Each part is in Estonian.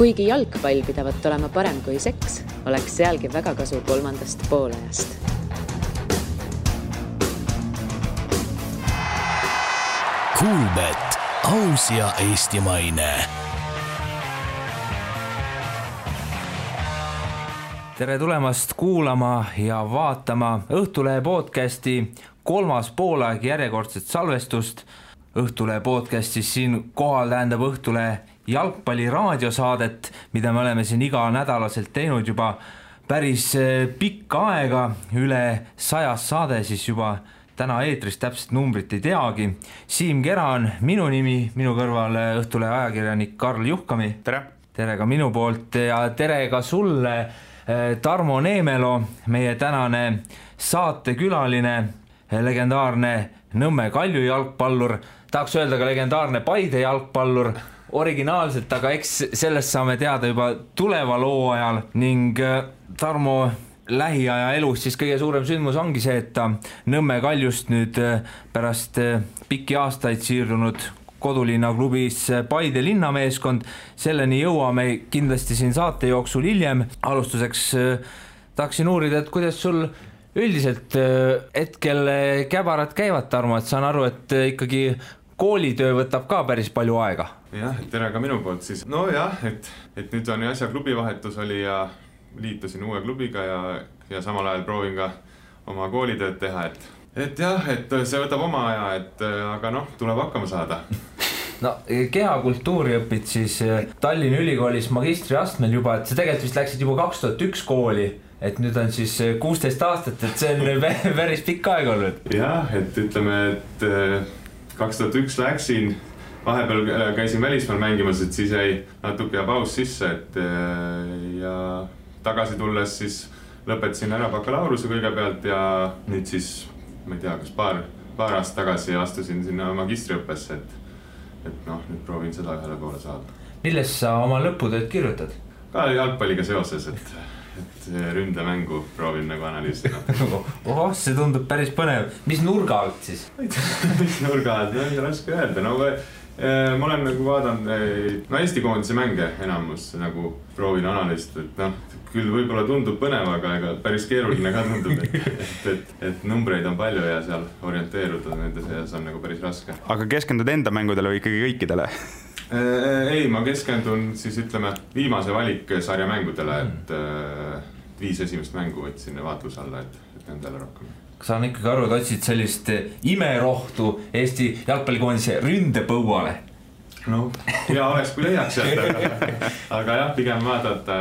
Kuigi jalgpall pidavat olema parem kui seks, oleks sealgi väga kasu 3. poolajast. Kuulbet, aus ja eestimaine. Tere tulemast kuulama ja vaatama Õhtulehe podcasti 3. poolaeg järjekordset salvestust. Õhtulehe podcastis siin kohal tähendab Õhtulehe jalgpalli raadiosaadet, mida me oleme siin iga nädalaselt teinud juba päris pikka aega, üle 100 saade, siis juba täna eetris täpselt numbrit ei teagi. Siim Kera on minu nimi, minu kõrval Õhtulehe ajakirjanik Karl Juhkami. Tere! Tere ka minu poolt ja tere ka sulle, Tarmo Neemelo, meie tänane saatekülaline, legendaarne Nõmme Kalju jalgpallur, tahaks öelda ka legendaarne Paide jalgpallur, originaalselt, aga eks sellest saame teada juba tuleva loo ajal ning Tarmo lähiaja elus siis kõige suurem sündmus ongi see, et ta Nõmme Kaljust nüüd pärast pikki aastaid siirdunud kodulinna klubis Paide linnameeskond. Selleni jõuame kindlasti siin saate jooksul hiljem. Alustuseks tahaksin uurida, et kuidas sul üldiselt hetkel käbarad käivad, Tarmo, et saan aru, et ikkagi koolitöö võtab ka päris palju aega. Jah, tere ka minu poolt siis. No jah, et nüüd on ju asja klubivahetus oli ja liitusin uue klubiga ja samal ajal proovin ka oma koolitööd teha, et jah, et see võtab oma aja, aga noh, tuleb hakkama saada. No, kehakultuuri õpid siis Tallinna Ülikoolis magistriastmel juba, et sa tegelikult vist läksid juba 2001 kooli, et nüüd on siis 16 aastat, et see on päris pikk aeg olnud. Jah, et ütleme, et 2001 läksin, vahepeal käisin välismaal mängimas, et siis jäi natuke paus sisse, ja tagasi tulles siis lõpetasin ära bakalaureuse kõigepealt ja nüüd siis, ma ei tea, kas paar aastat tagasi astusin sinna magistriõppesse, et noh, nüüd proovin seda ühele poole saada. Milles sa oma lõputööd kirjutad? Ka jalgpalliga seoses, et ründemängu proovin nagu analüüsida. See tundub päris põnev. Mis nurga alt siis? Mis nurga alt? No ei raske öelda. No, ma olen nagu vaadanud Eesti koondise mänge enamus nagu proovin analüüsida, et noh, küll võib-olla tundub põnev, aga päris keeruline ka tundub, et numbreid on palju ja seal orienteeruda nende seas on nagu päris raske. Aga keskendud enda mängudele või ikkagi kõikidele? Ei, ma keskendun siis ütleme viimase valik sarja mängudele, et 5 esimest mängu võtsin vaatluse alla, et nendele rohkem. Kas saan ikkagi aru, et otsid sellist imerohtu Eesti jalgpallikoondise ründepõuale? No, hea oleks, kui leiaks sealt, aga jah, pigem vaadata,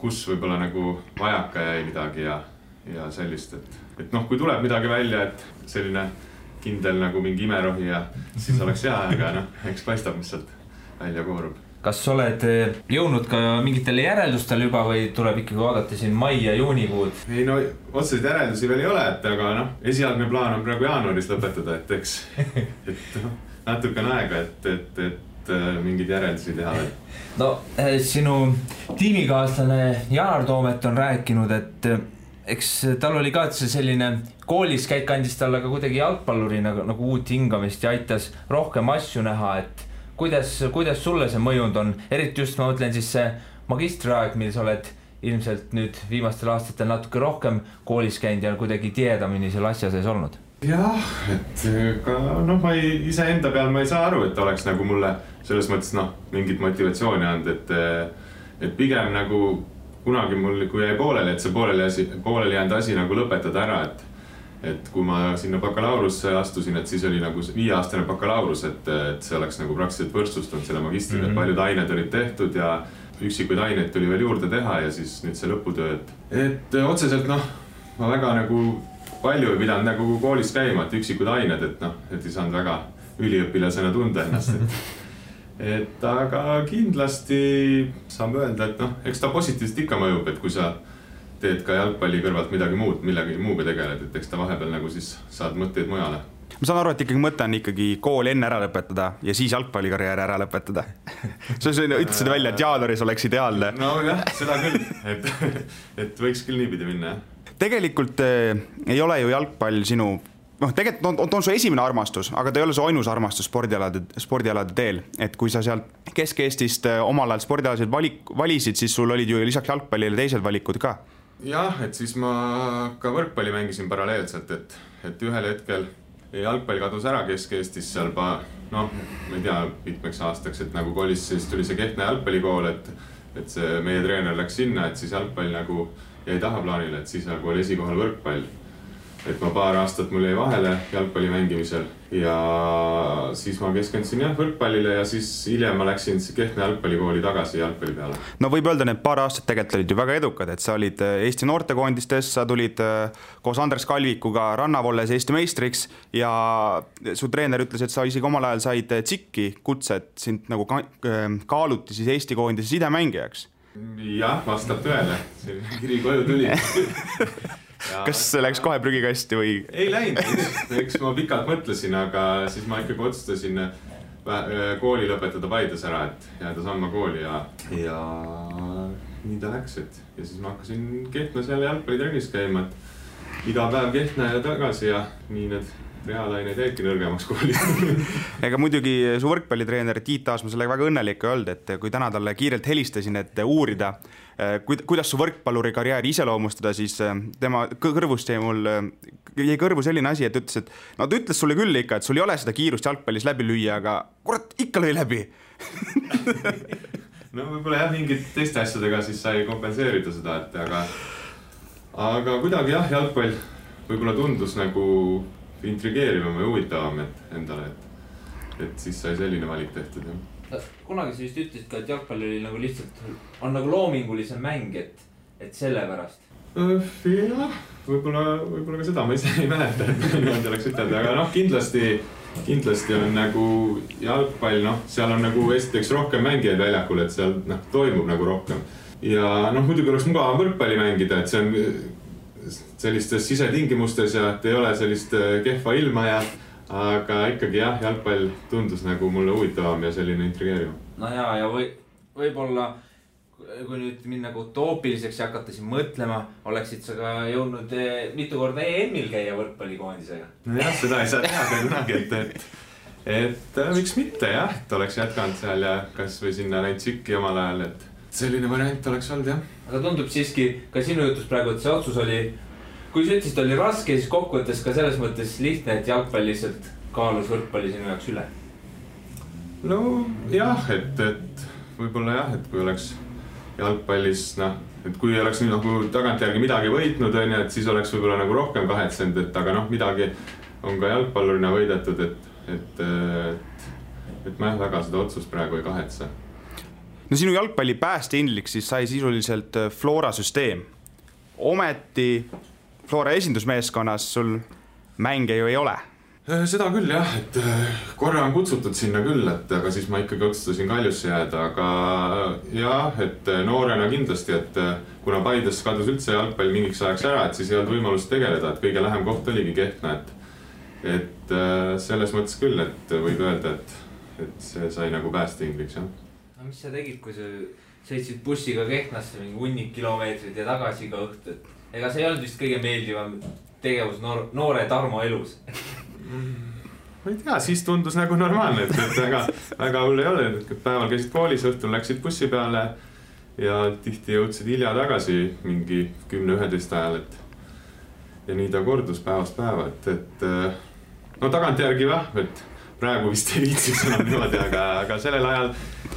kus võib-olla nagu vajaka jäi midagi ja sellist, et noh, kui tuleb midagi välja, et selline kindel nagu mingi imerohi ja siis oleks hea, aga noh, eks paistab, mis sealt välja koorub. Kas oled jõudnud ka mingitele järeldustele juba või tuleb ikkagi vaadata siin mai ja juunikuud? Ei no, otseselt järeldusi veel ei ole, aga noh, esialgne plaan on praegu jaanuaris lõpetada, et eks natuke on aega, et mingid järeldusi teha. No, sinu tiimikaaslane Janar Toomet on rääkinud, et eks tal oli ka selline koolis käik andis talle ka kuidagi jalgpalluri nagu uut hingamist ja aitas rohkem asju näha, et kuidas sulle see mõjund on? Eriti just ma mõtlen siis see magistriaeg, mil sa oled ilmselt nüüd viimastel aastatel natuke rohkem koolis käinud ja kuidagi tiedamini selle asja sees olnud. Jah, et ka noh, ma ise enda peal ma ei saa aru, et oleks nagu mulle selles mõttes noh, mingit motivatsiooni andnud, et pigem nagu kunagi mul, kui jäi pooleli, et see pooleli jäänud asi nagu lõpetada ära, et kui ma sinna bakalaurusse astusin, et siis oli nagu 5-aastane bakalaurus, et see oleks nagu praktiliselt võrdsustunud selle magistriga, et paljud ained olid tehtud ja üksikuid aineid tuli veel juurde teha ja siis nüüd see lõputöö, et otseselt noh, ma väga nagu palju ei pidanud nagu koolis käima, et üksikud ained, et noh, et ei saanud väga üliõpilasena tunda ennast, et aga kindlasti saame öelda, et noh, eks ta positiivselt ikka mõjub, et kui sa teed ka jalgpalli kõrvalt millegi muuga tegeled, et eks ta vahepeal nagu siis saad mõtteid mujale. Ma saan aru, et ikkagi mõte on ikkagi kooli enne ära lõpetada ja siis jalgpallikarjääri ära lõpetada. Sa ütlesid välja, et jaanuaris oleks ideaalne. No jah, seda küll, et võiks küll niipidi minna. Tegelikult ei ole ju jalgpall sinu tegelikult on su esimene armastus, aga ta ei ole su ainus armastus spordialade teel. Et kui sa sealt Kesk-Eestist omal ajal spordialasid valisid, siis sul olid ju lisaks jalgpallile teised valikud ka. Jah, et siis ma ka võrkpalli mängisin paralleelselt, et ühel hetkel jalgpall kadus ära Kesk-Eestis seal ma ei tea, mitmeks aastaks, et nagu kolis, siis tuli see Kehtna jalgpallikool, et see meie treener läks sinna, et siis jalgpall nagu jäi tahaplaanile, et siis nagu oli esikohal võrkpall. Et ma paar aastat mul jäi vahele jalgpalli mängimisel ja siis ma keskendusin võrkpallile ja siis hiljem ma läksin Kehtna jalgpallikooli tagasi jalgpalli peale. No võib öelda, need paar aastat tegelikult olid ju väga edukad, et sa olid Eesti noortekoondistes, sa tulid koos Andres Kalvikuga Rannavolles Eesti meistriks ja su treener ütles, et sa isegi omal ajal said tsikki kutset, sind nagu kaaluti siis Eesti koondise sidemängijaks. Jah, vastab tõele, see kiri koju tuli. Ja, kas see läks kohe prügikasti või? Ei läinud, eks ma pikalt mõtlesin, aga siis ma ikkagi otsustasin kooli lõpetada Paides ära, et jääda samma kooli ja nii ta läks, ja siis ma hakkasin Kehtnas jälle jalgpallitrennis käima, et iga päev Kehtna ja tagasi ja nii need reaalaineid jäidki nõrgemaks kooli. Ega muidugi su võrkpallitreener Tiit Aasma sellega väga õnnelik öelda, et kui täna talle kiirelt helistasin, et uurida, kuidas su võrkpalluri karjääri iseloomustada, siis tema kõrvust jäi kõrvu selline asi, et ütles, et ta ütles sulle küll ikka, et sul ei ole seda kiirust jalgpallis läbi lüüa, aga kurat, ikka lõi läbi. No võib-olla mingid teiste asjadega siis sai kompenseerida seda, et aga kuidagi jalgpall võib-olla tundus nagu intrigeerivam ja huvitavam endale, et siis sai selline valik tehtud. Kunagi sa vist ütlesid ka, et jalgpall oli nagu lihtsalt on nagu loomingulisem mäng, et selle pärast. Jah, võib-olla ka seda ma ise ei mäleta, et niimoodi oleks ütelda, aga kindlasti on nagu jalgpall, seal on nagu esiteks rohkem mängijaid väljakul, et seal toimub nagu rohkem. Ja muidugi oleks mugavam võrkpalli mängida, et see on sellistes sisetingimustes ja et ei ole sellist kehva ilma aga ikkagi jalgpall tundus nagu mulle huvitavam ja selline intrigeerivam. No ja võib-olla kui nüüd minna utoopiliseks ja hakata siin mõtlema, oleksid sa ka jõudnud mitu korda EM-il käia võrkpallikoondisega? No jah, seda ei saa teha kunagi, et miks mitte et oleks jätkanud seal ja kas või sinna näinud Tsikki omal ajal, et selline variant oleks olnud, jah. Aga tundub siiski ka sinu jutus praegu, et see otsus oli, kui sa ütlesid, oli raske, siis kokkuvõttes ka selles mõttes lihtne, et jalgpall lihtsalt kaalus võrkpalli sinu jaoks üle? No jah, et võib-olla et kui oleks jalgpallis, et kui oleks nüüd nagu tagantjärgi midagi võitnud, et siis oleks võib-olla nagu rohkem kahetsenud, aga midagi on ka jalgpallurina võidetud, et ma väga seda otsust praegu ei kahetse. No sinu jalgpalli päästeindliks siis sai sisuliselt Flora süsteem. Ometi Flora esindusmeeskonnas sul mänge ju ei ole. Seda küll et korra on kutsutud sinna küll, aga siis ma ikkagi otsustasin Kaljusse jääda, aga et noorena kindlasti, et kuna Paides kadus üldse jalgpall mingiks ajaks ära, et siis ei olnud võimalust tegeleda, et kõige lähem koht oligi Kehtna, et selles mõttes küll, et võib öelda, et see sai nagu päästeindliks, jah. No mis sa tegid, kui sa sõitsid bussiga Kehtnasse mingi hunnik kilomeetrid ja tagasi ka õhtu, et ega see ei olnud vist kõige meeldivam tegevus noore Tarmo elus? Ma ei tea, siis tundus nagu normaalne, et väga hull ei ole, et päeval käisid koolis, õhtul läksid bussi peale ja tihti jõudsid hilja tagasi mingi 10-11 ajal, ja nii ta kordus päevast päeva, et tagantjärgi et praegu vist ei viitsiks enam niimoodi, aga sellel ajal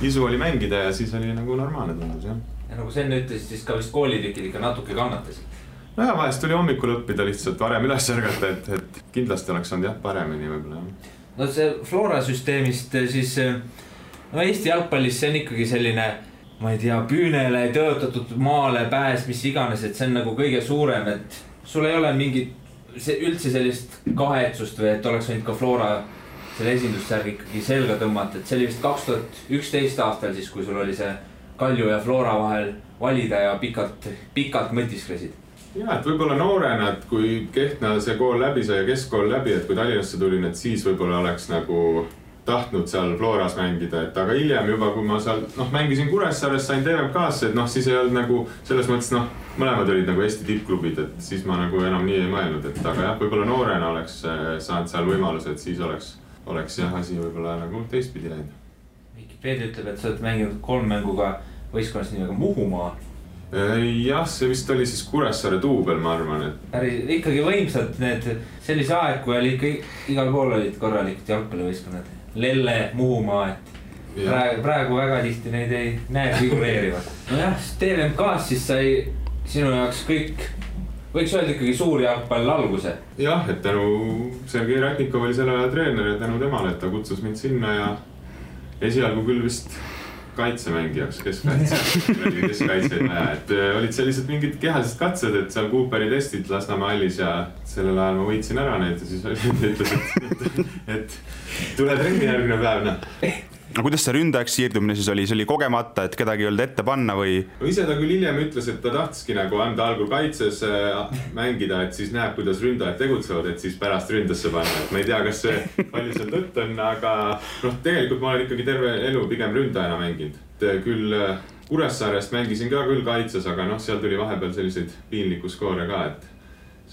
isu oli mängida ja siis oli nagu normaalne tundus, jah. Ja nagu sa enne ütlesid, siis ka vist koolitükid ikka natuke kannatasid. No ja vahest tuli hommikul õppida lihtsalt varem üles ärgata, et kindlasti oleks olnud paremini võib-olla. No see Flora süsteemist siis, Eesti jalgpallis see on ikkagi selline, ma ei tea, püünele tõotatud maale pääs, mis iganes, et see on nagu kõige suurem, et sul ei ole mingit üldse sellist kahetsust või et oleks võinud ka Flora selle esindussärgi ikkagi selga tõmmata, et see oli vist 2011 aastal siis, kui sul oli see Kalju ja Flora vahel valida ja pikalt mõtisklesid. Ja, et võib-olla noorena, et kui Kehtna see kool läbi sai ja keskkool läbi, et kui Tallinnasse tulin, et siis võib-olla oleks nagu tahtnud seal Floras mängida, et aga hiljem juba, kui ma seal mängisin Kuressaares, sain TVMK-sse, et siis ei olnud nagu selles mõttes mõlemad olid nagu Eesti tippklubid, et siis ma nagu enam nii ei mõelnud, et aga jah, võib-olla noorena oleks saanud seal võimaluse, et siis oleks jah asi võib-olla nagu teistpidi läinud. Vikipeedia ütleb, et sa oled mänginud 3 mänguga võistkonnas nimega Muhumaa. Jah, see vist oli siis Kuressaare duubel, ma arvan, et ikkagi võimsad need sellise aeg, kui oli ikka igal pool olid korralikud jalgpallivõistkonnad. Lelle, Muhumaa, et praegu väga tihti neid ei näe figureerivad. Nojah, TVMK-s siis sai sinu jaoks kõik, võiks öelda ikkagi suur jalgpall alguse. Jah, et tänu Sergei Ratnikov oli selle aja treener ja tänu temale, et ta kutsus mind sinna ja esialgu küll vist kaitsemängijaks, keskkaitseid vaja, et olid sellised mingid kehalised katsed, et seal Cooperi testid Lasnamäe hallis ja sellel ajal ma võitsin ära neid ja siis ütles, et tule trenni järgmine päev. No kuidas see ründajaks siirdumine siis oli? See oli kogemata, et kedagi ei olnud ette panna või? Ise ta küll hiljem ütles, et ta tahtiski nagu anda algul kaitses mängida, et siis näeb, kuidas ründajad tegutsevad, et siis pärast ründasse panna. Et ma ei tea, kas see palju seal tõtt on, aga tegelikult ma olen ikkagi terve elu pigem ründajana mänginud. Küll Kuressaarest mängisin ka küll kaitses, aga seal tuli vahepeal selliseid piinliku skoore ka, et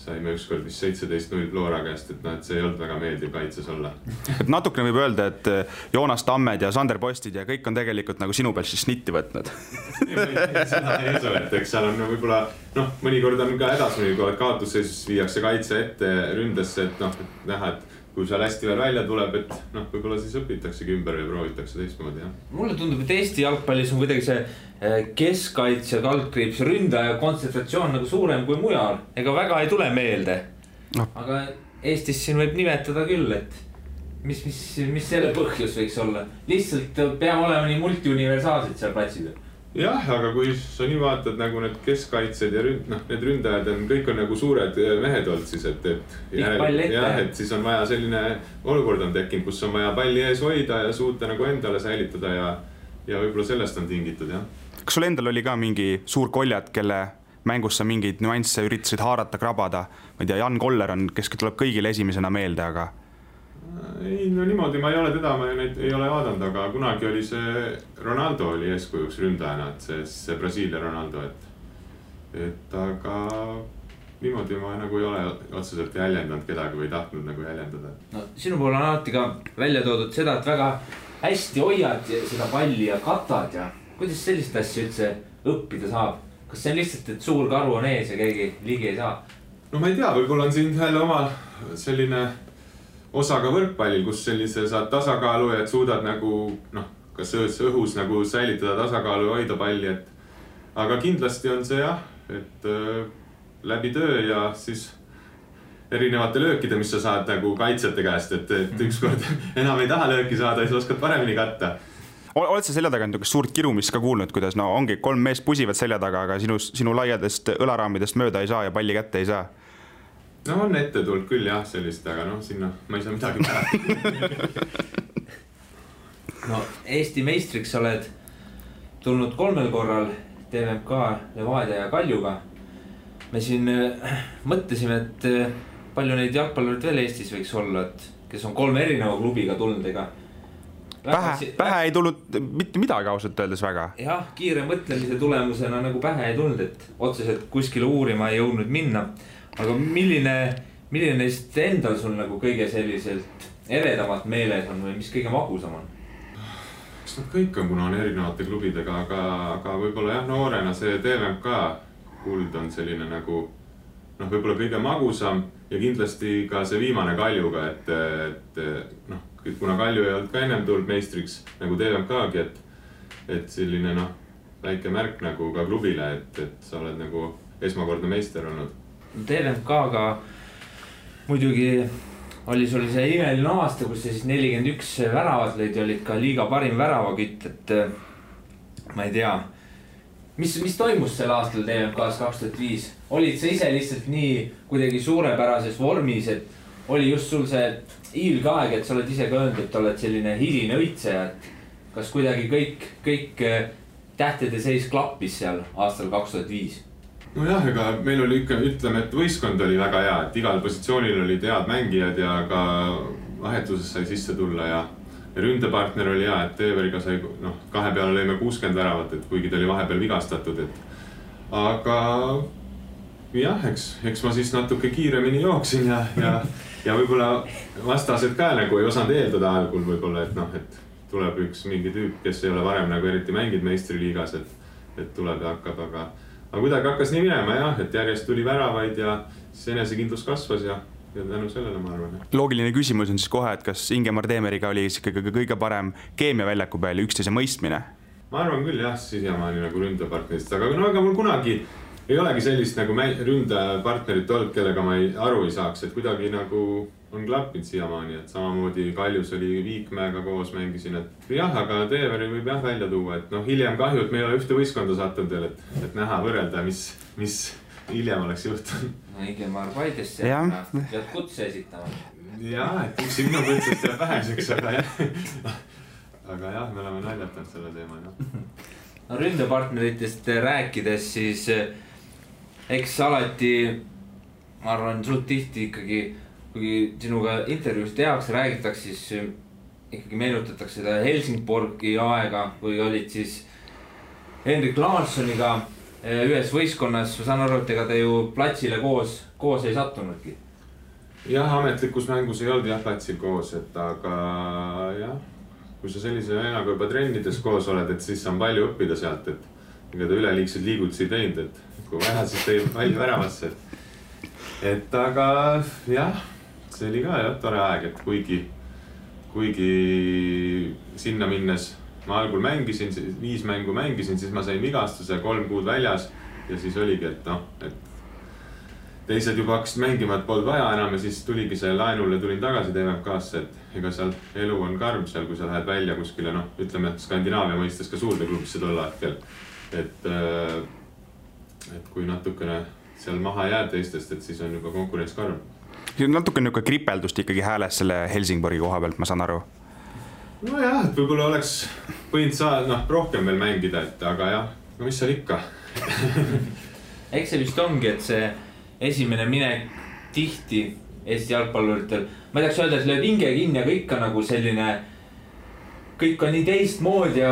saime ükskord vist 17-0 Flora käest, et see ei olnud väga meeldiv kaitses olla. Et natukene võib öelda, et Joonas Tammed ja Sander Postid ja kõik on tegelikult nagu sinu peal siis snitti võtnud. Seda ei usu, et eks seal on võib-olla, mõnikord on ka hädas, mõnikord kaotusseisus viiakse kaitse ette ründesse, et näha, et kui seal hästi veel välja tuleb, et võib-olla siis õpitaksegi ümber ja proovitakse teistmoodi. Mulle tundub, et Eesti jalgpallis on kuidagi see keskkaitse kaldkriips ründaja kontsentratsioon nagu suurem kui mujal. Ega väga ei tule meelde. Aga Eestis siin võib nimetada küll, et mis selle põhjus võiks olla. Lihtsalt peame olema nii multiuniversaalsed seal platsid. Jah, aga kui sa nii vaatad nagu need keskkaitsed ja need ründajad on, kõik on nagu suured mehed olnud siis, et siis on vaja selline olukord on tekkinud, kus on vaja palli ees hoida ja suuta nagu endale säilitada ja võib-olla sellest on tingitud, jah. Kas sul endal oli ka mingi suur koljad, kelle mängus sa mingeid nüansse üritasid haarata, krabada? Ma ei tea, Jan Koller on, kes tuleb kõigile esimesena meelde, aga... Ei, niimoodi ma ei ole teda, ma neid ei ole vaadanud, aga kunagi oli see Ronaldo oli eeskujuks ründajana, et see Brasiilia Ronaldo, et aga niimoodi ma nagu ei ole otseselt jäljendanud kedagi või tahtnud nagu jäljendada. Sinu pool on alati ka välja toodud seda, et väga hästi hoiad seda palli ja katad ja kuidas sellist asja üldse õppida saab? Kas see on lihtsalt, et suur karu on ees ja keegi ligi ei saa? No ma ei tea, võib-olla on siin jälle omal selline osaga võrkpallil, kus sellise saad tasakaalu ja et suudad nagu, kas õhus nagu säilitada tasakaalu ja hoida palli, aga kindlasti on see jah, et läbi töö ja siis erinevate löökide, mis sa saad nagu kaitsjate käest, et ükskord enam ei taha lööki saada, siis oskad paremini katta. Oled sa selja taga suurt kirumist ka kuulnud, kuidas ongi 3 meest pusivad selja taga, aga sinu laiadest õlaraamidest mööda ei saa ja palli kätte ei saa? On ette tulnud küll jah sellist, aga sinna ma ei saa midagi päeva. Eesti meistriks oled tulnud 3 korral TVMK, Levadia ja Kaljuga. Me siin mõtlesime, et palju neid jalgpallurid veel Eestis võiks olla, et kes on 3 erineva klubiga tulnud, ega pähe ei tulnud mitte midagi ausalt öeldes väga. Jah, kiire mõtlemise tulemusena nagu pähe ei tulnud, et otseselt kuskile uurima ei jõudnud minna. Aga milline neist endal sul nagu kõige selliselt eredamalt meeles on või mis kõige magusam on? Eks nad kõik on, kuna on erinevate klubidega, aga võib-olla jah, noorena see TVMK kuld on selline nagu võib-olla kõige magusam ja kindlasti ka see viimane Kaljuga, et kuna Kalju ei olnud ka ennem tulnud meistriks nagu TVMK-gi, et selline väike märk nagu ka klubile, et sa oled nagu esmakordne meister olnud. TVMK-ga muidugi oli sul see imeline aasta, kus siis 41 väravat lõid ja olid ka liiga parim väravakütt, et ma ei tea, mis toimus sel aastal TVMK-s 2005? Olid sa ise lihtsalt nii kuidagi suurepärases vormis, et oli just sul see hiilgaeg, et sa oled ise ka öelnud, et oled selline hiline õitseja, et kas kuidagi kõik tähtede seis klappis seal aastal 2005? No jah, ega meil oli ikka, ütleme, et võistkond oli väga hea, et igal positsioonil olid head mängijad ja ka vahetuses sai sisse tulla ja ründepartner oli hea, et Teeveriga sai, noh, 2 peale lõime 60 väravat, et kuigi ta oli vahepeal vigastatud, et aga jah, eks ma siis natuke kiiremini jooksin ja võib-olla vastased ka nagu ei osanud eeldada algul võib-olla, et noh, et tuleb üks mingi tüüp, kes ei ole varem nagu eriti mänginud meistriliigas, et tuleb ja hakkab, aga kuidagi hakkas nii minema jah, et järjest tuli väravaid ja siis enesekindlus kasvas ja tänu sellele ma arvan. Loogiline küsimus on siis kohe, et kas Ingemar Teemeriga oli ikkagi kõige parem keemia väljaku peal ja üksteise mõistmine? Ma arvan küll jah, siiamaani nagu ründepartnerist, aga mul kunagi ei olegi sellist nagu ründepartnerit olnud, kellega ma aru ei saaks, et kuidagi nagu on klappinud siiamaani, et samamoodi Kaljus oli Viikmäega koos mängisin, et jah, aga Teeveri võib jah välja tuua, et noh, hiljem kahju, et me ei ole ühte võistkonda sattunud veel, et näha võrrelda, mis hiljem oleks juhtunud. No Ingemar Paidesse pead kutse esitama. Jah, et üks minu kutsest jääb väheseks, aga jah, me oleme naljatanud selle teema. No ründepartneritest rääkides, siis eks alati, ma arvan, suht tihti ikkagi, kui sinuga intervjuus tehakse, räägitakse, siis ikkagi meenutatakse seda Helsingborgi aega, kui olid siis Henrik Larssoniga ühes võistkonnas, ma saan aru, et ega te ju platsile koos ei sattunudki. Jah, ametlikus mängus ei olnud jah platsil koos, et aga jah, kui sa sellise vennaga juba trennides koos oled, et siis on palju õppida sealt, et ega ta üleliigseid liigutusi teinud, et kui vaja, siis tõi palju väravasse. Et aga jah, see oli ka jah tore aeg, et kuigi sinna minnes ma algul mängisin, 5 mängu mängisin, siis ma sain vigastuse 3 kuud väljas ja siis oligi, et noh, et teised juba hakkasid mängima, et polnud vaja enam ja siis tuligi see laenule, tulin tagasi TMK-sse, et ega seal elu on karm seal, kui sa lähed välja kuskile, noh, ütleme Skandinaavia mõistes ka suurde klubisse tol hetkel, et kui natukene seal maha jääd teistest, et siis on juba konkurents karm. Natuke niuke kripeldust ikkagi hääles selle Helsingborgi koha pealt, ma saan aru. No jah, et võib-olla oleks võinud saada rohkem veel mängida, et aga jah, no mis seal ikka. Eks see vist ongi, et see esimene minek tihti Eesti jalgpalluritel, ma ei tahaks öelda, et lööb hinge kinni, aga ikka nagu selline, kõik on nii teistmoodi ja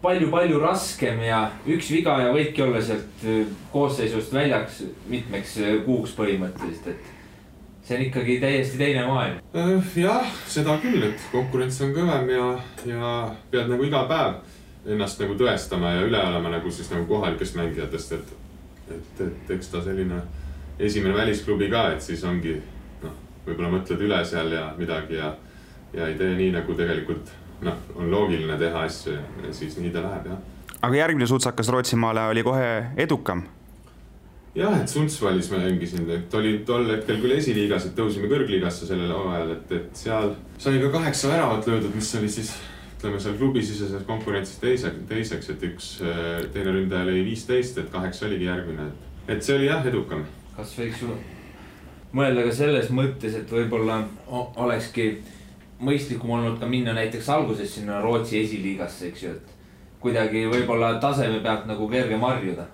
palju raskem ja üks viga ja võidki olla sealt koosseisust väljaks mitmeks kuuks põhimõtteliselt, et see on ikkagi täiesti teine maailm. Jah, seda küll, et konkurents on kõvem ja pead nagu iga päev ennast nagu tõestama ja üle olema nagu siis nagu kohalikest mängijatest, et eks ta selline esimene välisklubi ka, et siis ongi, noh, võib-olla mõtled üle seal ja midagi ja ei tee nii nagu tegelikult, noh, on loogiline teha asju ja siis nii ta läheb, jah. Aga järgmine sutsakas Rootsimaale oli kohe edukam? Jah, et Sundsvallis me mängisin, et oli tol hetkel küll esiliigas, et tõusime kõrgliigasse sellel ajal, et seal sai ka 8 väravat löödud, mis oli siis, ütleme seal klubisiseses konkurentsis teiseks, et üks teine ründaja lõi 15, et 8 oligi järgmine, et see oli jah edukam. Kas võiks mõelda ka selles mõttes, et võib-olla olekski mõistlikum olnud ka minna näiteks alguses sinna Rootsi esiliigasse, eks ju, et kuidagi võib-olla taseme pealt nagu kerge marjuda?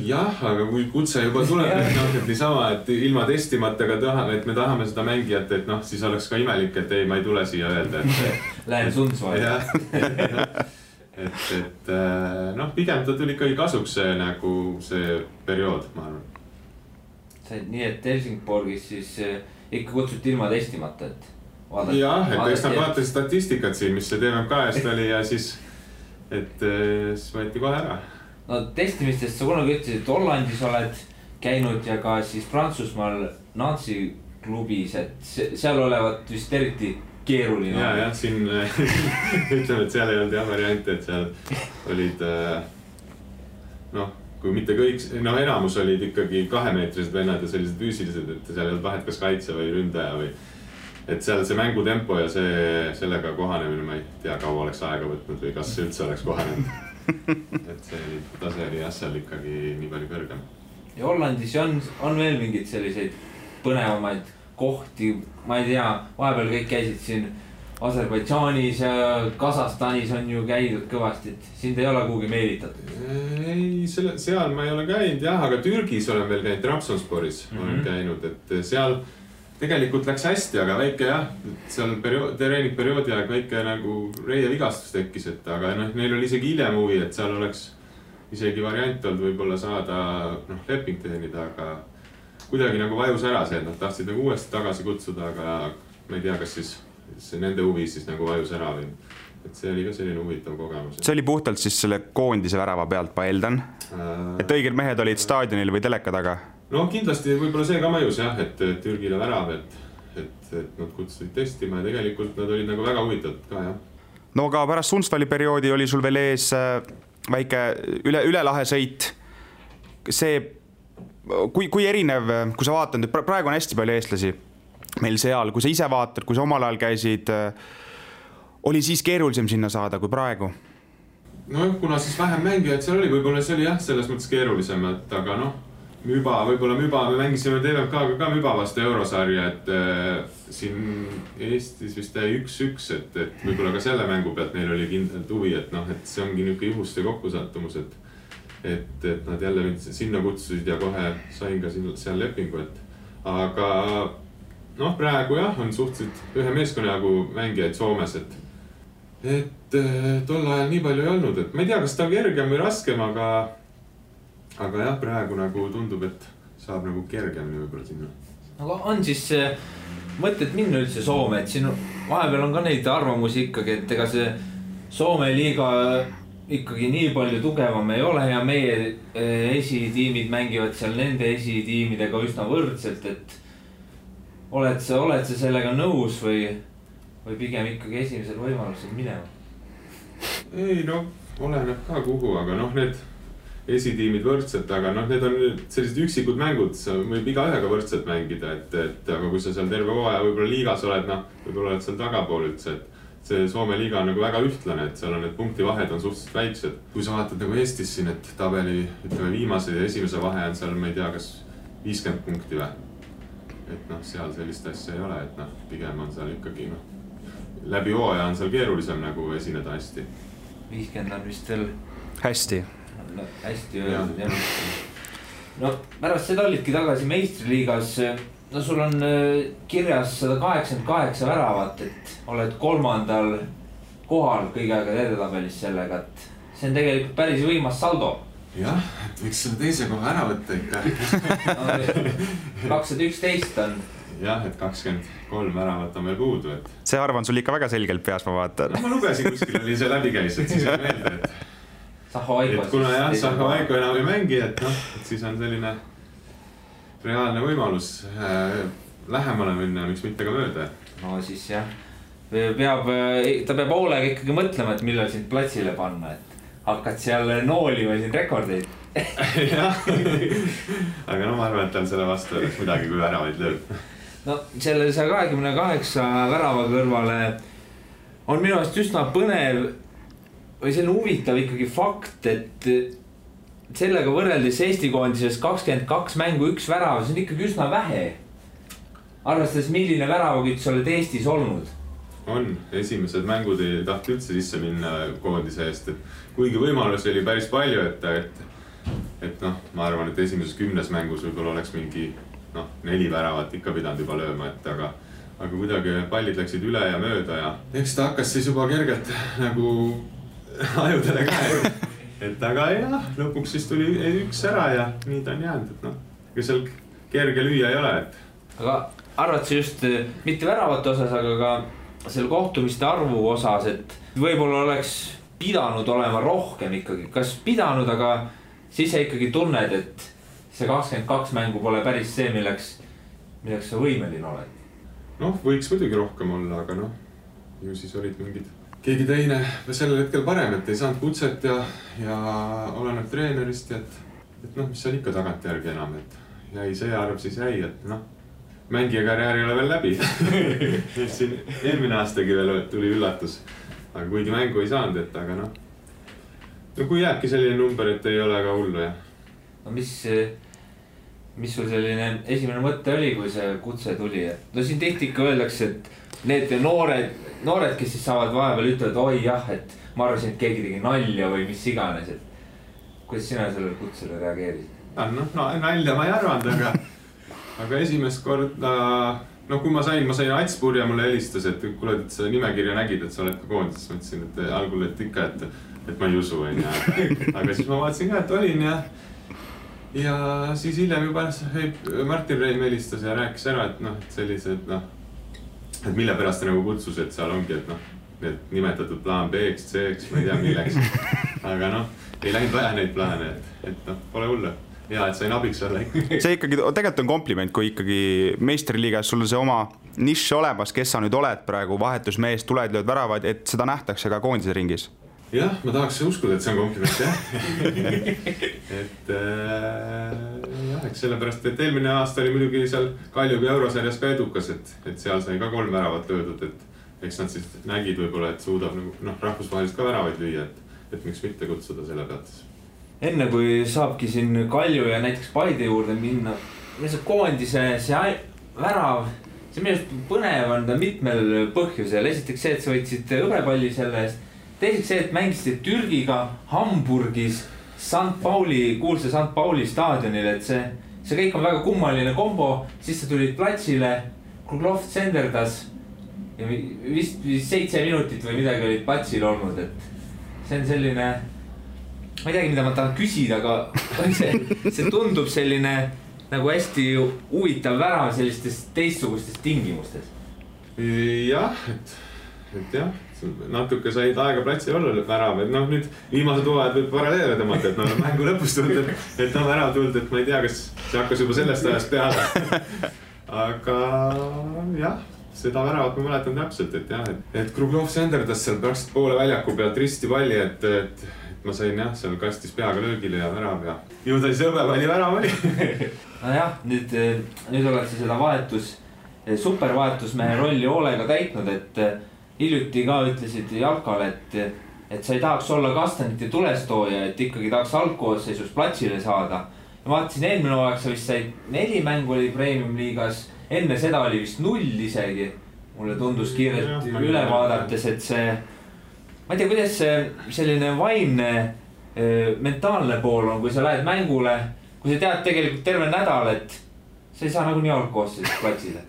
Jah, aga kui kutse juba tuleb, et niisama, et ilma testimata, et me tahame seda mängijat, et noh, siis oleks ka imelik, et ei, ma ei tule siia öelda, et lähen Sundsvalli. Et noh, pigem ta tuli ikkagi kasuks see periood, ma arvan. Nii, et Helsingborgis siis ikka kutsuti ilma testimata, et vaadati. Jah, et eks nad vaatasid statistikat siin, mis see TMK-st oli ja siis võeti kohe ära. No testimistest sa kunagi ütlesid, et Hollandis oled käinud ja ka siis Prantsusmaal Nancy klubis, et seal olevat vist eriti keeruline. Jah, siin ütleme, et seal ei olnud jah variante, et seal olid, noh, kui mitte kõik, no enamus olid ikkagi 2-meetrised vennad ja sellised füüsilised, et seal ei olnud vahet kas kaitse või ründaja või et seal see mängutempo ja sellega kohanemine, ma ei tea, kaua oleks aega võtnud või kas üldse oleks kohanenud. Et see tase oli jah seal ikkagi nii palju kõrgem. Ja Hollandis on veel mingid selliseid põnevamaid kohti, ma ei tea, vahepeal kõik käisid siin Aserbaidžaanis ja Kasahstanis on ju käidud kõvasti, et sind ei ole kuhugi meelitatud? Ei, seal ma ei ole käinud jah, aga Türgis olen veel käinud, Trabzonsporis olen käinud, et seal tegelikult läks hästi, aga väike jah, seal treeningperioodi aeg väike nagu reie vigastus tekkis, et aga neil oli isegi hiljem huvi, et seal oleks isegi variant olnud võib-olla saada leping teenida, aga kuidagi nagu vajus ära see, et nad tahtsid nagu uuesti tagasi kutsuda, aga ma ei tea, kas siis see nende huvi siis nagu vajus ära või. Et see oli ka selline huvitav kogemus. See oli puhtalt siis selle koondise värava pealt, ma eeldan. Et õiged mehed olid staadionil või teleka taga? No kindlasti võib-olla see ka mõjus jah, et Türgile värav, et nad kutsusid testima ja tegelikult nad olid nagu väga huvitatud ka jah. No aga pärast Sundsvalli perioodi oli sul veel ees väike üle lahe sõit. See, kui erinev, kui sa vaatad, et praegu on hästi palju eestlasi meil seal, kui sa ise vaatad, kui sa omal ajal käisid, oli siis keerulisem sinna saada kui praegu? No kuna siis vähem mängijaid seal oli, võib-olla see oli jah, selles mõttes keerulisem, et aga võib-olla Müba, me mängisime TVMK-ga ka Müba vastu eurosarja, et siin Eestis vist 1-1, et võib-olla ka selle mängu pealt neil oli kindlalt huvi, et et see ongi niuke juhuste kokkusattumus, et nad jälle sinna kutsusid ja kohe sain ka seal lepingu, et aga praegu jah, on suhteliselt ühe meeskonna jagu mängijaid Soomes, et tol ajal nii palju ei olnud, et ma ei tea, kas ta on kergem või raskem, aga jah, praegu nagu tundub, et saab nagu kergemini võib-olla sinna. Aga on siis mõtted minna üldse Soome, et siin vahepeal on ka neid arvamusi ikkagi, et ega see Soome liiga ikkagi nii palju tugevam ei ole ja meie esitiimid mängivad seal nende esitiimidega üsna võrdselt, et oled sa sellega nõus või pigem ikkagi esimesel võimalusel minema? Ei, oleneb ka kuhu, aga need esitiimid võrdselt, aga need on sellised üksikud mängud, sa võib igaühega võrdselt mängida, et aga kui sa seal terve hooaja võib-olla liigas oled, võib-olla oled seal tagapool üldse, et see Soome liiga on nagu väga ühtlane, et seal on need punktivahed on suhteliselt väiksed. Kui sa vaatad nagu Eestis siin, et tabeli ütleme viimase ja esimese vahe on seal, ma ei tea, kas 50 punkti või? Et seal sellist asja ei ole, et pigem on seal ikkagi läbi hooaja on seal keerulisem nagu esineda hästi. 50 on vist veel hästi öeldud jah. No pärast seda olidki tagasi meistriliigas. No sul on kirjas 188 väravat, et oled 3. kohal kõige aega edetabelis sellega, et see on tegelikult päris võimas saldo. Jah, et võiks selle teise koha ära võtta ikka. 211 on. Jah, et 23 väravat on veel puudu, et... See arv on sul ikka väga selgelt peas, ma vaatan. Ma lugesin kuskil oli see läbi käis, et siis on meelde, et... Saho-Aiko. Et kuna jah, Saho-Aiko enam ei mängi, et siis on selline reaalne võimalus lähemale minna, miks mitte ka mööda. No siis jah, ta peab hoolega ikkagi mõtlema, et millal sind platsile panna, et hakkad seal noolima siin rekordeid. Jah, aga ma arvan, et tal selle vastu oleks midagi, kui väravaid lööb. No selle 128 värava kõrvale on minu arust üsna põnev või selline huvitav ikkagi fakt, et sellega võrreldes Eesti koondises 22 mängu 1 värav, see on ikkagi üsna vähe. Arvestades, milline väravakütt sa oled Eestis olnud? On, esimesed mängud ei tahti üldse sisse minna koondise eest, et kuigi võimalusi oli päris palju, et ma arvan, et esimeses 10 mängus võib-olla oleks mingi 4 väravat ikka pidanud juba lööma, et aga kuidagi pallid läksid üle ja mööda ja eks ta hakkas siis juba kergelt nagu ajudele ka, et aga jah, lõpuks siis tuli 1 ära ja nii ta on jäänud, et ega seal kerge lüüa ei ole, et... Aga arvad sa just mitte väravate osas, aga ka selle kohtumiste arvu osas, et võib-olla oleks pidanud olema rohkem ikkagi, kas pidanud, aga siis sa ikkagi tunned, et see 22 mängu pole päris see, milleks sa võimeline oled? Võiks muidugi rohkem olla, aga ju siis olid mingid keegi teine sellel hetkel parem, et ei saanud kutset ja oleneb treenerist, et mis seal ikka tagantjärgi enam, et jäi see arv siis jäi, et mängija karjäär ei ole veel läbi. Et siin eelmine aastagi veel tuli üllatus, aga kuigi mängu ei saanud, et aga kui jääbki selline number, et ei ole ka hullu, jah. No mis sul selline esimene mõte oli, kui see kutse tuli? No siin tihti ikka öeldakse, et need noored, kes siis saavad vahepeal ütlevad, oi jah, et ma arvasin, et keegi tegi nalja või mis iganes, et kuidas sina sellele kutsele reageerisid? Nalja ma ei arvanud, aga esimest korda no kui ma sain Ats Purja mulle helistas, et kuule, et sa nimekirja nägid, et sa oled ka koondis, ma ütlesin, et algul, et ikka, et ma ei usu, aga siis ma vaatasin ka, et olin ja siis hiljem juba Martin Reim helistas ja rääkis ära, et et sellised, et mille pärast ta nagu kutsus, et seal ongi, et need nimetatud plaan B-ks, C-ks, ma ei tea milleks, aga ei läinud vaja neid plaane, et pole hullu. Ja, et sain abiks olla. See ikkagi tegelikult on kompliment, kui ikkagi meistriliigas sul on see oma nišš olemas, kes sa nüüd oled praegu, vahetusmees, tuled, lööd väravad, et seda nähtakse ka koondise ringis. Jah, ma tahaks uskuda, et see on kompliment, jah. Eks sellepärast, et eelmine aasta oli muidugi seal Kaljuga eurosarjas ka edukas, et seal sai ka 3 väravat löödud, et eks nad siis nägid võib-olla, et suudab rahvusvahelist ka väravaid lüüa, et miks mitte kutsuda selle pealt. Enne kui saabki siin Kalju ja näiteks Paide juurde minna, see koondise see värav, see minu arust põnev on mitmel põhjusel. Esiteks see, et sa võtsid hõbepalli selle eest. Teiseks see, et mängisid Türgiga Hamburgis kuulsa St. Pauli staadionil, et see kõik on väga kummaline kombo. Siis sa tulid platsile, Kruglov tsenderdas ja vist 7 minutit või midagi olid platsil olnud, et see on selline, ma ei teagi, mida ma tahan küsida, aga see tundub selline nagu hästi huvitav värav sellistes teistsugustes tingimustes. Jah, et jah, natuke said aega platsil olla värav, et nüüd viimased hooajad võib paralleele tõmmata, et mängu lõpus tulnud, et värav tulnud, et ma ei tea, kas see hakkas juba sellest ajast peale. Aga jah, seda väravat ma mäletan täpselt, et jah, et Kruglov senderdas seal praktiliselt poole väljaku pealt risti palli, et ma sain jah, seal kastis peaga löögile ja värav ja ju ta siis hõbepalli värav oli. No jah, nüüd oled sa seda supervahetusmehe rolli hoolega täitnud, et hiljuti ka ütlesid Jalkal, et sa ei tahaks olla Kastanite tulestooja, et ikkagi tahaks algkoosseisus platsile saada. Ja vaatasin eelmine hooaeg, sa vist said 4 mängu oli Premium liigas, enne seda oli vist 0 isegi. Mulle tundus kiirelt üle vaadates, et see, ma ei tea, kuidas selline vaimne mentaalne pool on, kui sa lähed mängule, kui sa tead tegelikult terve nädal, et sa ei saa nagu nii algkoosseisus platsile.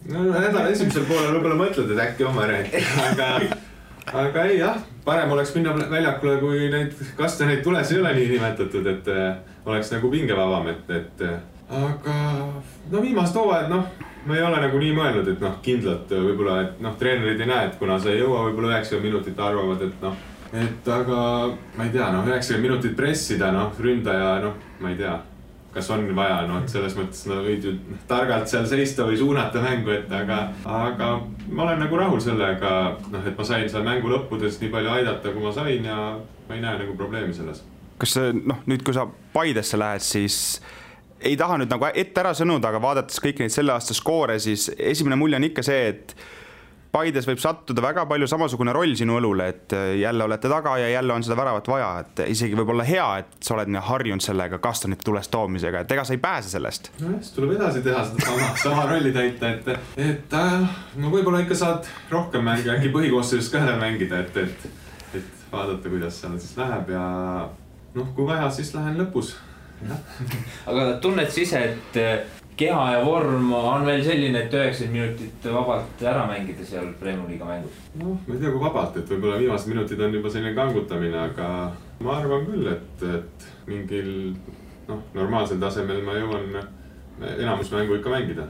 No nädala esimesel poolel võib-olla mõtled, et äkki oma räägi, aga ei jah, parem oleks minna väljakule, kui neid Kastaneid tules ei ole nii nimetatud, et oleks nagu pingevabam, aga viimast hooajad, ma ei ole nagu nii mõelnud, et kindlalt võib-olla, et treenerid ei näe, et kuna sa ei jõua võib-olla 90 minutit arvavad, et aga ma ei tea, 90 minutit pressida, ründaja, ma ei tea, kas on vaja, et selles mõttes võid ju targalt seal seista või suunata mängu, aga ma olen nagu rahul sellega, et ma sain seal mängu lõppudes nii palju aidata, kui ma sain ja ma ei näe nagu probleemi selles. Kas nüüd, kui sa Paidesse lähed, siis ei taha nüüd nagu ette ära sõnuda, aga vaadates kõiki neid selle aasta skoore, siis esimene mulje on ikka see, et Paides võib sattuda väga palju samasugune roll sinu õlule, et jälle olete taga ja jälle on seda väravat vaja, et isegi võib olla hea, et sa oled harjunud sellega Kastanite tulest toomisega, et ega sa ei pääse sellest. No siis tuleb edasi teha seda sama rolli täita, et võib-olla ikka saad rohkem mänge, äkki põhikoosseisus ka mängida, et vaadata, kuidas seal siis läheb ja kui vaja, siis lähen lõpus. Aga tunned sa ise, et keha ja vorm on veel selline, et 90 minutit vabalt ära mängida seal Premium liiga mängus? Ma ei tea, kui vabalt, et võib-olla viimased minutid on juba selline kangutamine, aga ma arvan küll, et mingil normaalsel tasemel ma jõuan enamus mängu ikka mängida.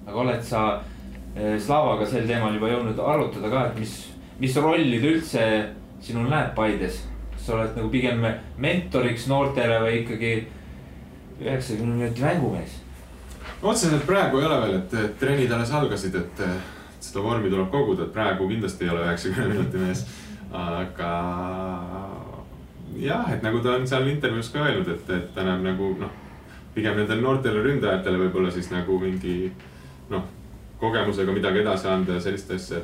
Aga oled sa Slavaga sel teemal juba jõudnud arutada ka, et mis rollid üldse sinul näeb Paides? Kas sa oled nagu pigem mentoriks noortele või ikkagi 90 minuti mängumees? Otseselt praegu ei ole veel, et trennid alles algasid, et seda vormi tuleb koguda, et praegu kindlasti ei ole 90 minuti mees. Aga jah, et nagu ta on seal intervjuus ka öelnud, et ta näeb nagu pigem nendele noortele ründajatele võib-olla siis nagu mingi kogemusega midagi edasi anda ja sellist asja,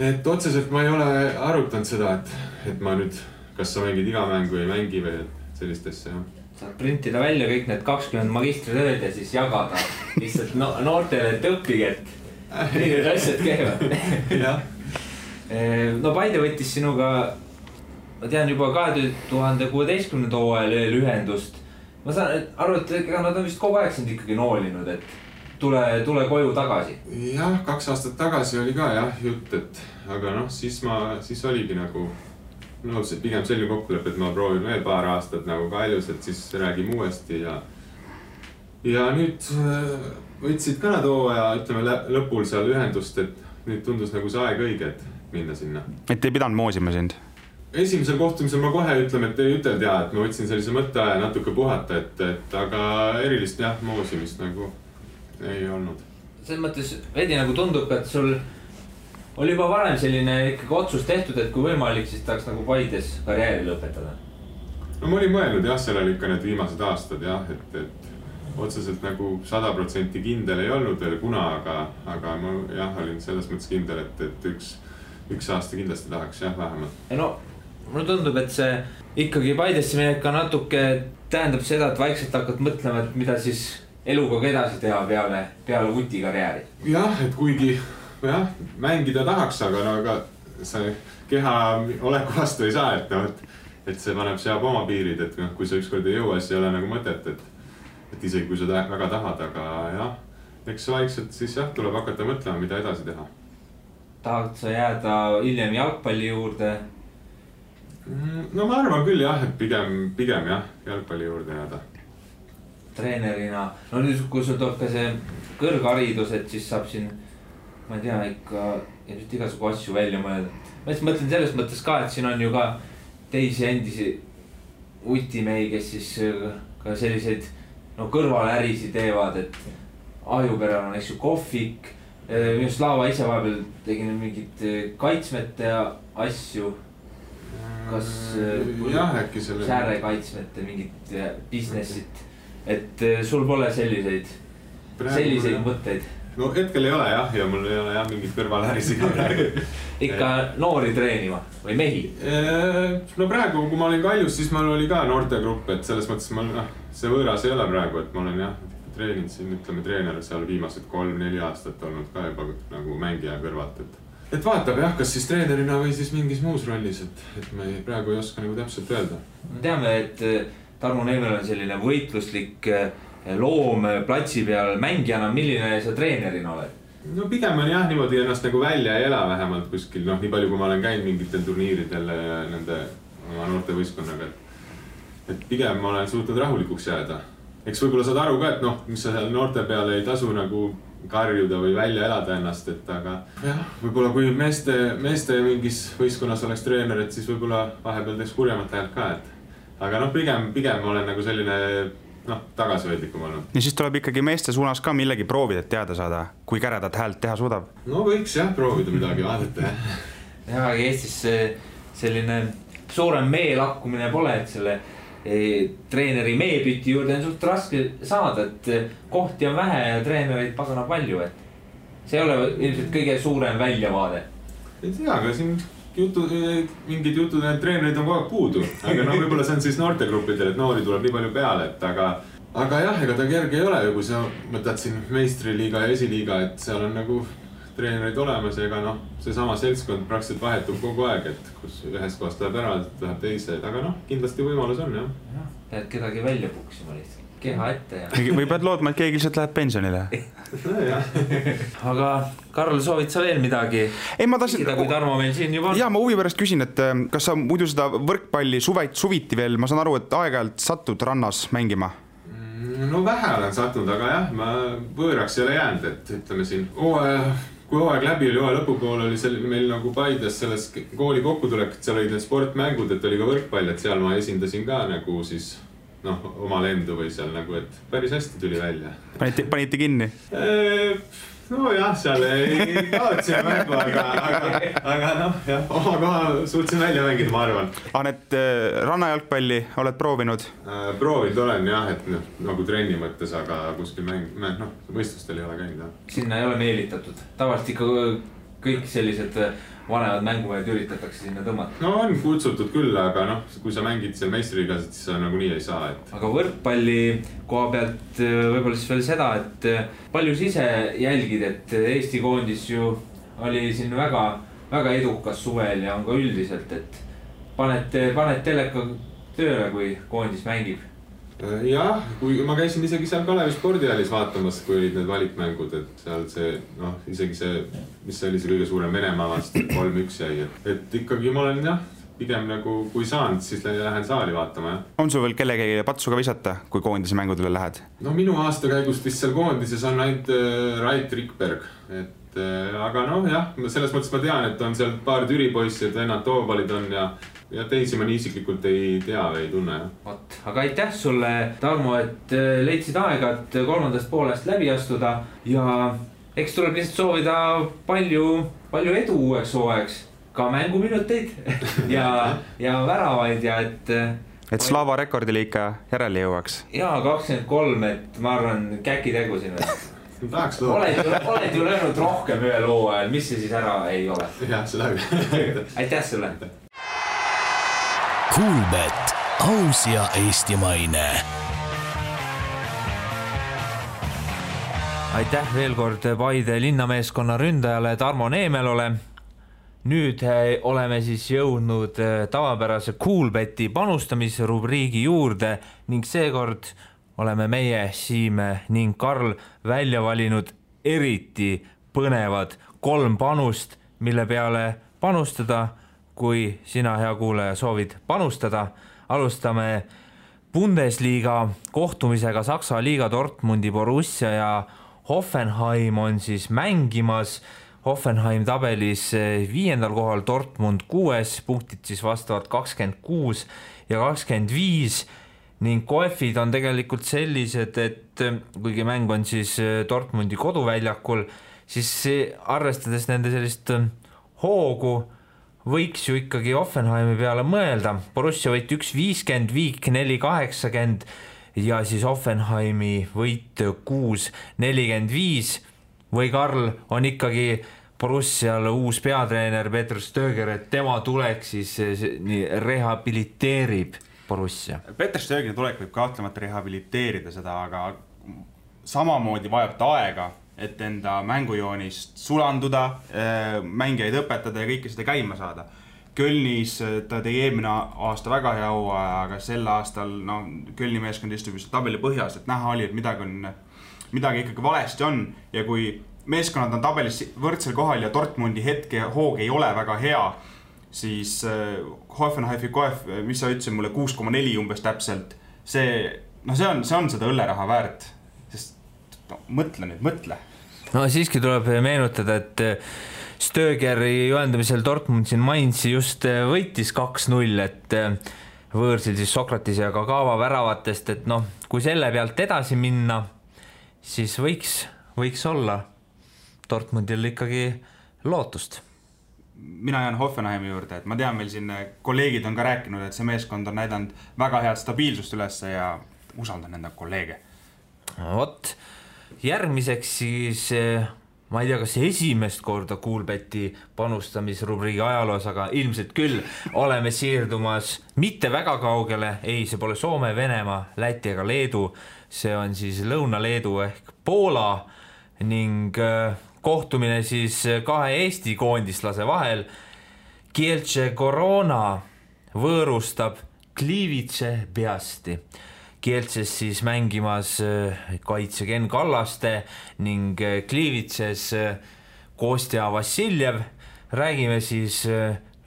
et otseselt ma ei ole arutanud seda, et ma nüüd kas sa mängid iga mängu ei mängi või sellist asja, jah. Saad printida välja kõik need 20 magistritööd ja siis jagada lihtsalt noortele, et õppige, et need asjad käivad. No Paide võttis sinuga, ma tean juba 2016. hooajal ühendust. Ma saan aru, et nad on vist kogu aeg sind ikkagi noolinud, et tule koju tagasi. Jah, 2 aastat tagasi oli ka jah jutt, et aga noh, siis oligi nagu nõus, et pigem selline kokkulepe, et ma proovin veel paar aastat nagu Kaljus, et siis räägime uuesti ja nüüd võtsid ka nad hooaja, ütleme lõpul seal ühendust, et nüüd tundus nagu see aeg õige, et minna sinna. Et ei pidanud moosima sind? Esimesel kohtumisel ma kohe ütleme, et ei üteldi ja, et ma võtsin sellise mõtteaja natuke puhata, et aga erilist jah, moosimist nagu ei olnud. Selles mõttes veidi nagu tundub, et sul oli juba varem selline ikkagi otsus tehtud, et kui võimalik, siis tahaks nagu Paides karjääri lõpetada. No ma olin mõelnud jah, seal oli ikka need viimased aastad jah, et otseselt nagu 100% kindel ei olnud veel kuna, aga ma jah, olin selles mõttes kindel, et üks aasta kindlasti tahaks jah, vähemalt. No, mulle tundub, et see ikkagi Paidesse minek ka natuke tähendab seda, et vaikselt hakkad mõtlema, et mida siis eluga edasi teha peale Vuti karjääri. Jah, et kuigi jah, mängida tahaks, aga see keha oleku vastu ei saa, et see seab oma piirid, et kui sa ükskord ei jõua, siis ei ole nagu mõtet, et isegi kui sa väga tahad, aga jah, eks vaikselt siis jah, tuleb hakata mõtlema, mida edasi teha. Tahad sa jääda hiljem jalgpalli juurde? No ma arvan küll jah, et pigem jah, jalgpalli juurde jääda. Treenerina, no nüüd kui sul tuleb ka see kõrgharidus, et siis saab siin, ma ei tea, ikka igasugu asju välja mõelda. Ma mõtlen selles mõttes ka, et siin on ju ka teisi endisi utimehi, kes siis ka selliseid kõrvalärisi teevad, et Ahjuperel on eks ju kohvik, minu Slava ise vahepeal tegin mingid kaitsmete asju. Kas sääre kaitsmete mingit businessit, et sul pole selliseid mõtteid? No hetkel ei ole jah, ja mul ei ole jah mingit kõrvalärisi ka praegu. Ikka noori treenima või mehi? No praegu, kui ma olin Kaljus, siis mul oli ka noortegrupp, et selles mõttes see võõras ei ole praegu, et ma olen jah treeninud siin, ütleme treener seal viimased 3-4 aastat olnud ka juba nagu mängija kõrvalt, et vaatab jah, kas siis treenerina või siis mingis muus rollis, et me praegu ei oska nagu täpselt öelda. Me teame, et Tarmo Neemel on selline võitluslik loom platsi peal mängijana, milline sa treenerina oled? No pigem on jah niimoodi ennast nagu välja ei ela vähemalt kuskil, nii palju kui ma olen käinud mingitel turniiridel nende oma noorte võistkonnaga, et pigem ma olen suutnud rahulikuks jääda. Eks võib-olla saad aru ka, et mis sa seal noorte peale ei tasu nagu karjuda või välja elada ennast, et aga jah, võib-olla kui meeste mingis võistkonnas oleks treener, et siis võib-olla vahepeal teeks kurjemat häält ka, et aga pigem olen nagu selline tagasihoidlikum olnud. Ja siis tuleb ikkagi meeste suunas ka millegi proovida, et teada saada, kui käredat häält teha suudab. No võiks jah proovida midagi vaadata. Ja Eestis selline suurem meelakkumine pole, et selle treeneri meepüti juurde on suht raske saada, et kohti on vähe ja treenereid pagana palju, et see ei ole ilmselt kõige suurem väljavaade. Ei tea, aga siin mingid jutud, et treenerid on kogu aeg puudu, aga võib-olla see on siis noortegruppidel, et noori tuleb nii palju peale, et aga jah, ega ta kerge ei ole ju, kui sa mõtled siin meistriliiga ja esiliiga, et seal on nagu treenerid olemas ja ega seesama seltskond praktiliselt vahetub kogu aeg, et kus ühest kohast läheb ära, läheb teise, aga kindlasti võimalus on jah. Pead kedagi välja puksima lihtsalt, keha ette ja... Või pead loodma, et keegi lihtsalt läheb pensionile. Aga Karl, soovid sa veel midagi? Ei, ma tahtsin... Kui Tarmo meil siin juba on. Ja ma huvi pärast küsin, et kas sa muidu seda võrkpalli suviti veel, ma saan aru, et aeg-ajalt satud rannas mängima? No vähe olen sattunud, aga jah, ma võõraks ei ole jäänud, et ütleme siin kui hooaeg läbi oli, hooaja lõpupool oli meil nagu Paides selles kooli kokkutulek, et seal olid need sportmängud, et oli ka võrkpall, et seal ma esindasin ka nagu siis oma lendu või seal nagu, et päris hästi tuli välja. Panite kinni? No jah, seal ei kaotsime mängu, aga jah, oma koha suutsin välja mängida, ma arvan. Need rannajalgpalli oled proovinud? Proovinud olen jah, et nagu trenni mõttes, aga kuskil võistlustel ei ole käinud. Sinna ei ole meelitatud. Tavaliselt ikka kõik sellised vanemad mängumehed üritatakse sinna tõmmata. No on kutsutud küll, aga kui sa mängid seal meistriliigas, siis sa nagu nii ei saa. Aga võrkpalli koha pealt võib-olla siis veel seda, et palju siis ise jälgid, et Eesti koondis ju oli siin väga, väga edukas suvel ja on ka üldiselt, et paned teleka tööle, kui koondis mängib? Jah, kui ma käisin isegi seal Kalevi spordihallis vaatamas, kui olid need valikmängud, et seal see, isegi see, mis oli see kõige suurem Venemaa vastu, 3-1 jäi, et ikkagi ma olen pigem nagu, kui saanud, siis lähen saali vaatama, jah. On sul veel kellegi patsuga visata, kui koondise mängudele lähed? No minu aasta käigust vist seal koondises on ainult Rait Rikberg, et aga jah, selles mõttes ma tean, et on seal paar Türi poissi, et vennad Toobalid on ja teisi ma nii isiklikult ei tea või ei tunne. Võt, aga aitäh sulle, Tarmo, et leidsid aega, et kolmandast poolest läbi astuda ja eks tuleb lihtsalt soovida palju edu uueks hooajaks, ka mänguminuteid ja väravaid ja et Slava rekordile ikka järele jõuaks. Jaa, 23, et ma arvan, käki tegu sinna. Oled ju löönud rohkem ühe loo ajal, mis see siis ära ei ole? Jah, seda küll. Aitäh sulle! Kuulbet, aus ja eestimaine. Aitäh veel kord Paide linnameeskonna ründajale Tarmo Neemelole. Nüüd oleme siis jõudnud tavapärase Kuulbeti panustamisrubriigi juurde ning seekord oleme meie, Siime ning Karl välja valinud eriti põnevad 3 panust, mille peale panustada. Kui sina, hea kuulaja, soovid panustada, alustame Bundesliga kohtumisega Saksa liiga Dortmundi Borussia ja Hoffenheim on siis mängimas. Hoffenheim tabelis 5. kohal, Dortmund 6, punktid siis vastavalt 26 ja 25 ning koefid on tegelikult sellised, et kuigi mäng on siis Dortmundi koduväljakul, siis arvestades nende sellist hoogu, võiks ju ikkagi Hoffenheimi peale mõelda. Borussia võit 1-50, Viik 4-80 ja siis Hoffenheimi võit 6-45. Või Karl, on ikkagi Borussial uus peatreener Peter Stöger, et tema tulek siis rehabiliteerib Borussia? Peter Stögeri tulek võib kahtlemata rehabiliteerida seda, aga samamoodi vajab ta aega, et enda mängujoonist sulanduda, mängijaid õpetada ja kõike seda käima saada. Kölnis ta tegi eelmine aasta väga hea hooaja, aga sel aastal Kölni meeskond istub just tabeli põhjas, et näha oli, et midagi ikkagi valesti on ja kui meeskonnad on tabelis võrdsel kohal ja Dortmundi hetke hoog ei ole väga hea, siis Hoffenheimi koef, mis sa ütlesid mulle, 6,4 umbes täpselt, see on seda õlleraha väärt. Mõtle. No siiski tuleb meenutada, et Stögeri juhendamisel Dortmund siin Mainzi just võitis 2-0, et võõrsil siis Sokratis ja Kagawa väravatest, et kui selle pealt edasi minna, siis võiks olla Dortmundil ikkagi lootust. Mina jään Hoffenheimi juurde, et ma tean, meil siin kolleegid on ka rääkinud, et see meeskond on näidanud väga head stabiilsust üles ja usaldan enda kolleege. Vot, järgmiseks siis, ma ei tea, kas esimest korda Kuulbeti panustamisrubriigi ajaloos, aga ilmselt küll oleme siirdumas mitte väga kaugele, ei, see pole Soome, Venemaa, Läti ega Leedu, see on siis Lõuna-Leedu ehk Poola ning kohtumine siis 2 Eesti koondislase vahel. Kielce Corona võõrustab Gliwice Piasti. Kielces siis mängimas kaitse Ken Kallaste ning Gliwices Kostja Vassiljev. Räägime siis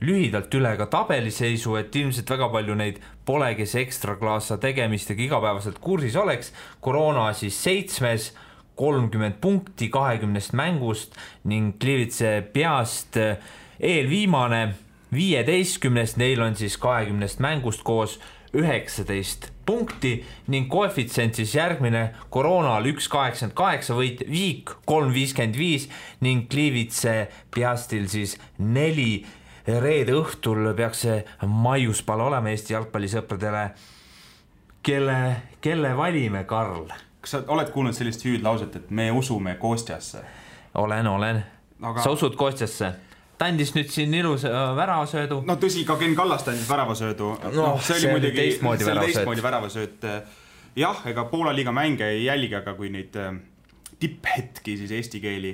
lühidalt üle ka tabeliseisu, et ilmselt väga palju neid pole, kes ekstraklaasa tegemistega igapäevaselt kursis oleks. Corona siis 7, 30 punkti 20 mängust ning Gliwice Piast eelviimane 15, neil on siis 20 mängust koos 19 punkti ning koefitsient siis järgmine Coronal 1,88 võit, Viik 3,55 ning Gliwice Piastil siis 4. Reede õhtul peaks see maiuspal olema Eesti jalgpallisõpradele. Kelle valime, Karl? Kas sa oled kuulnud sellist hüüdlauset, et me usume Kostjasse? Olen. Aga... Sa usud Kostjasse? Ta andis nüüd siin ilus väravasöödu. No tõsi, ka Ken Kallast andis väravasöödu. See oli muidugi teistmoodi väravasööt. Jah, ega Poola liiga mänge ei jälgi, aga kui neid tipphetki siis eesti keeli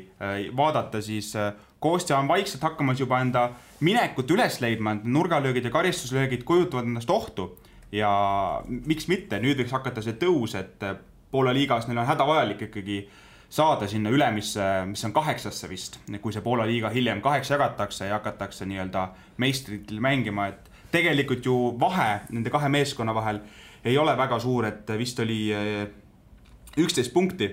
vaadata, siis Kostja on vaikselt hakkamas juba enda minekut üles leidma, nurgalöögid ja karistuslöögid kujutavad endast ohtu ja miks mitte, nüüd võiks hakata see tõus, et Poola liigas neil on hädavajalik ikkagi saada sinna ülemisse, mis on 8. vist, kui see Poola liiga hiljem 8 jagatakse ja hakatakse nii-öelda meistritel mängima, et tegelikult ju vahe nende 2 meeskonna vahel ei ole väga suur, et vist oli 11 punkti,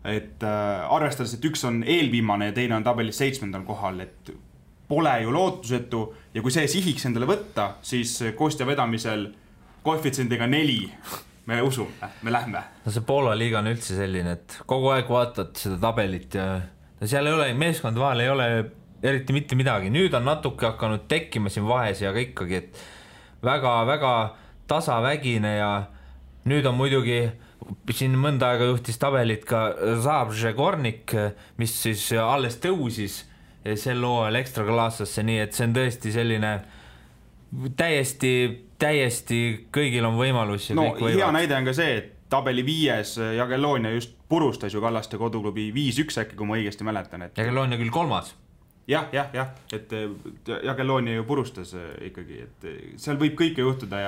et arvestades, et üks on eelviimane ja teine on tabelis 7. kohal, et pole ju lootusetu ja kui see sihiks endale võtta, siis Kostja vedamisel koefitsiendiga 4 me usume, me lähme. No see Poola liiga on üldse selline, et kogu aeg vaatad seda tabelit ja seal ei ole, meeskond vahel ei ole eriti mitte midagi. Nüüd on natuke hakanud tekkima siin vahes ja ikkagi, et väga-väga tasavägine ja nüüd on muidugi siin mõnda aega juhtis tabelit ka Zabrze Gornik, mis siis alles tõusis sel hooajal ekstraklaassasse, nii et see on tõesti selline täiesti kõigil on võimalus ja kõik võivad. Hea näide on ka see, et tabeli 5. Jagellonia just purustas ju Kallaste koduklubi 5-1 äkki, kui ma õigesti mäletan. Jagellonia küll 3. Jah, et Jagellonia ju purustas ikkagi, et seal võib kõike juhtuda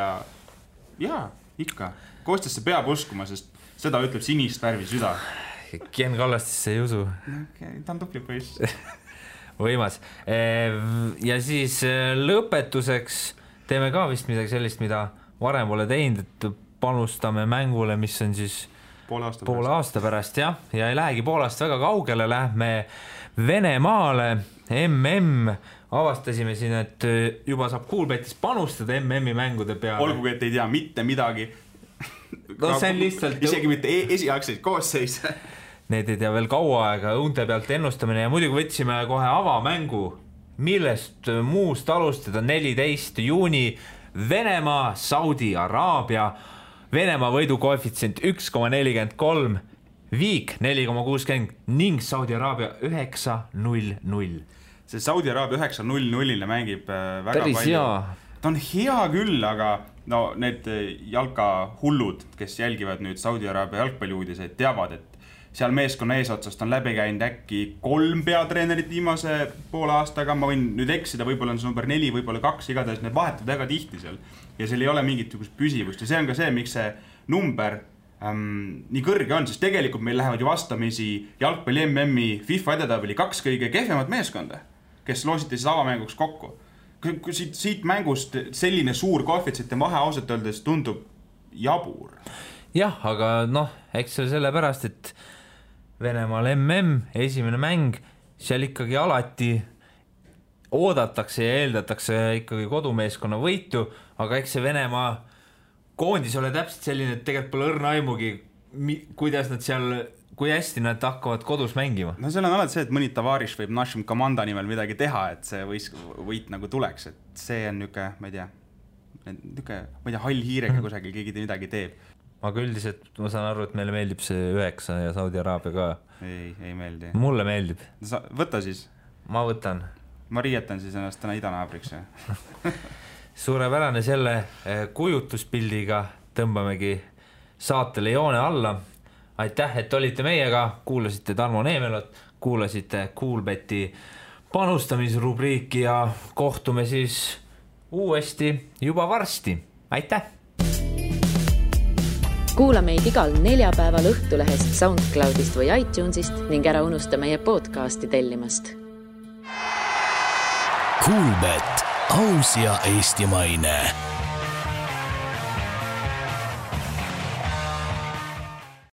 ja ikka. Kostjasse peab uskuma, sest seda ütleb sinist värvi süda. Ken Kallastesse ei usu. Ta on tupli poiss. Võimas. Ja siis lõpetuseks teeme ka vist midagi sellist, mida varem pole teinud, et panustame mängule, mis on siis poole aasta pärast ja ei lähegi Poolast väga kaugele, lähme Venemaale, avastasime siin, et juba saab Coolbetis panustada MM-i mängude peale. Olgugi, et ei tea mitte midagi. No see on lihtsalt... Isegi mitte esialgseid koosseis. Need ei tea veel kaua aega, õunte pealt ennustamine ja muidugi võtsime kohe avamängu, millest muust alustada 14. juuni Venemaa, Saudi Araabia, Venemaa võidu koefitsient 1,43, viik 4,60 ning Saudi Araabia 9-0-0. See Saudi Araabia 9-0-0-le mängib väga päris palju. Hea. Ta on hea küll, aga no need jalkahullud, kes jälgivad nüüd Saudi Araabia jalgpalliuudiseid, teavad, et seal meeskonna eesotsast on läbi käinud äkki 3 peatreenerit viimase poole aastaga, ma võin nüüd eksida, võib-olla on see number 4, võib-olla 2, igatahes need vahetud väga tihti seal ja seal ei ole mingit püsivust ja see on ka see, miks see number nii kõrge on, sest tegelikult meil lähevad ju vastamisi jalgpalli MM-i FIFA edetabeli 2 kõige kehvemat meeskonda, kes loositi siis avamänguks kokku. Kui siit mängust selline suur koefitsient vahe ausalt öeldes tundub jabur. Jah, aga eks see sellepärast, et Venemaal esimene mäng, seal ikkagi alati oodatakse ja eeldatakse ikkagi kodumeeskonna võitu, aga eks see Venemaa koondis ole täpselt selline, et tegelikult pole õrna aimugi, kuidas nad seal, kui hästi nad hakkavad kodus mängima. No seal on alati see, et mõni Tavaris võib Našim komanda nimel midagi teha, et see võit nagu tuleks, et see on niuke, ma ei tea, hall hiirega kusagil keegi midagi teeb. Aga üldiselt ma saan aru, et meile meeldib see 9 ja Saudi Araabia ka. Ei meeldi. Mulle meeldib. Võta siis. Ma võtan. Ma riietan siis ennast täna idanaabriks. Suurepärane selle kujutuspildiga tõmbamegi saatele joone alla. Aitäh, et olite meiega, kuulasite Tarmo Neemelot, kuulasite Coolbeti panustamisrubriiki ja kohtume siis uuesti juba varsti. Aitäh! Kuula meid igal neljapäeval Õhtulehest, SoundCloudist või iTunesist ning ära unusta meie podcasti tellimast. Coolbet, aus ja eestimaine.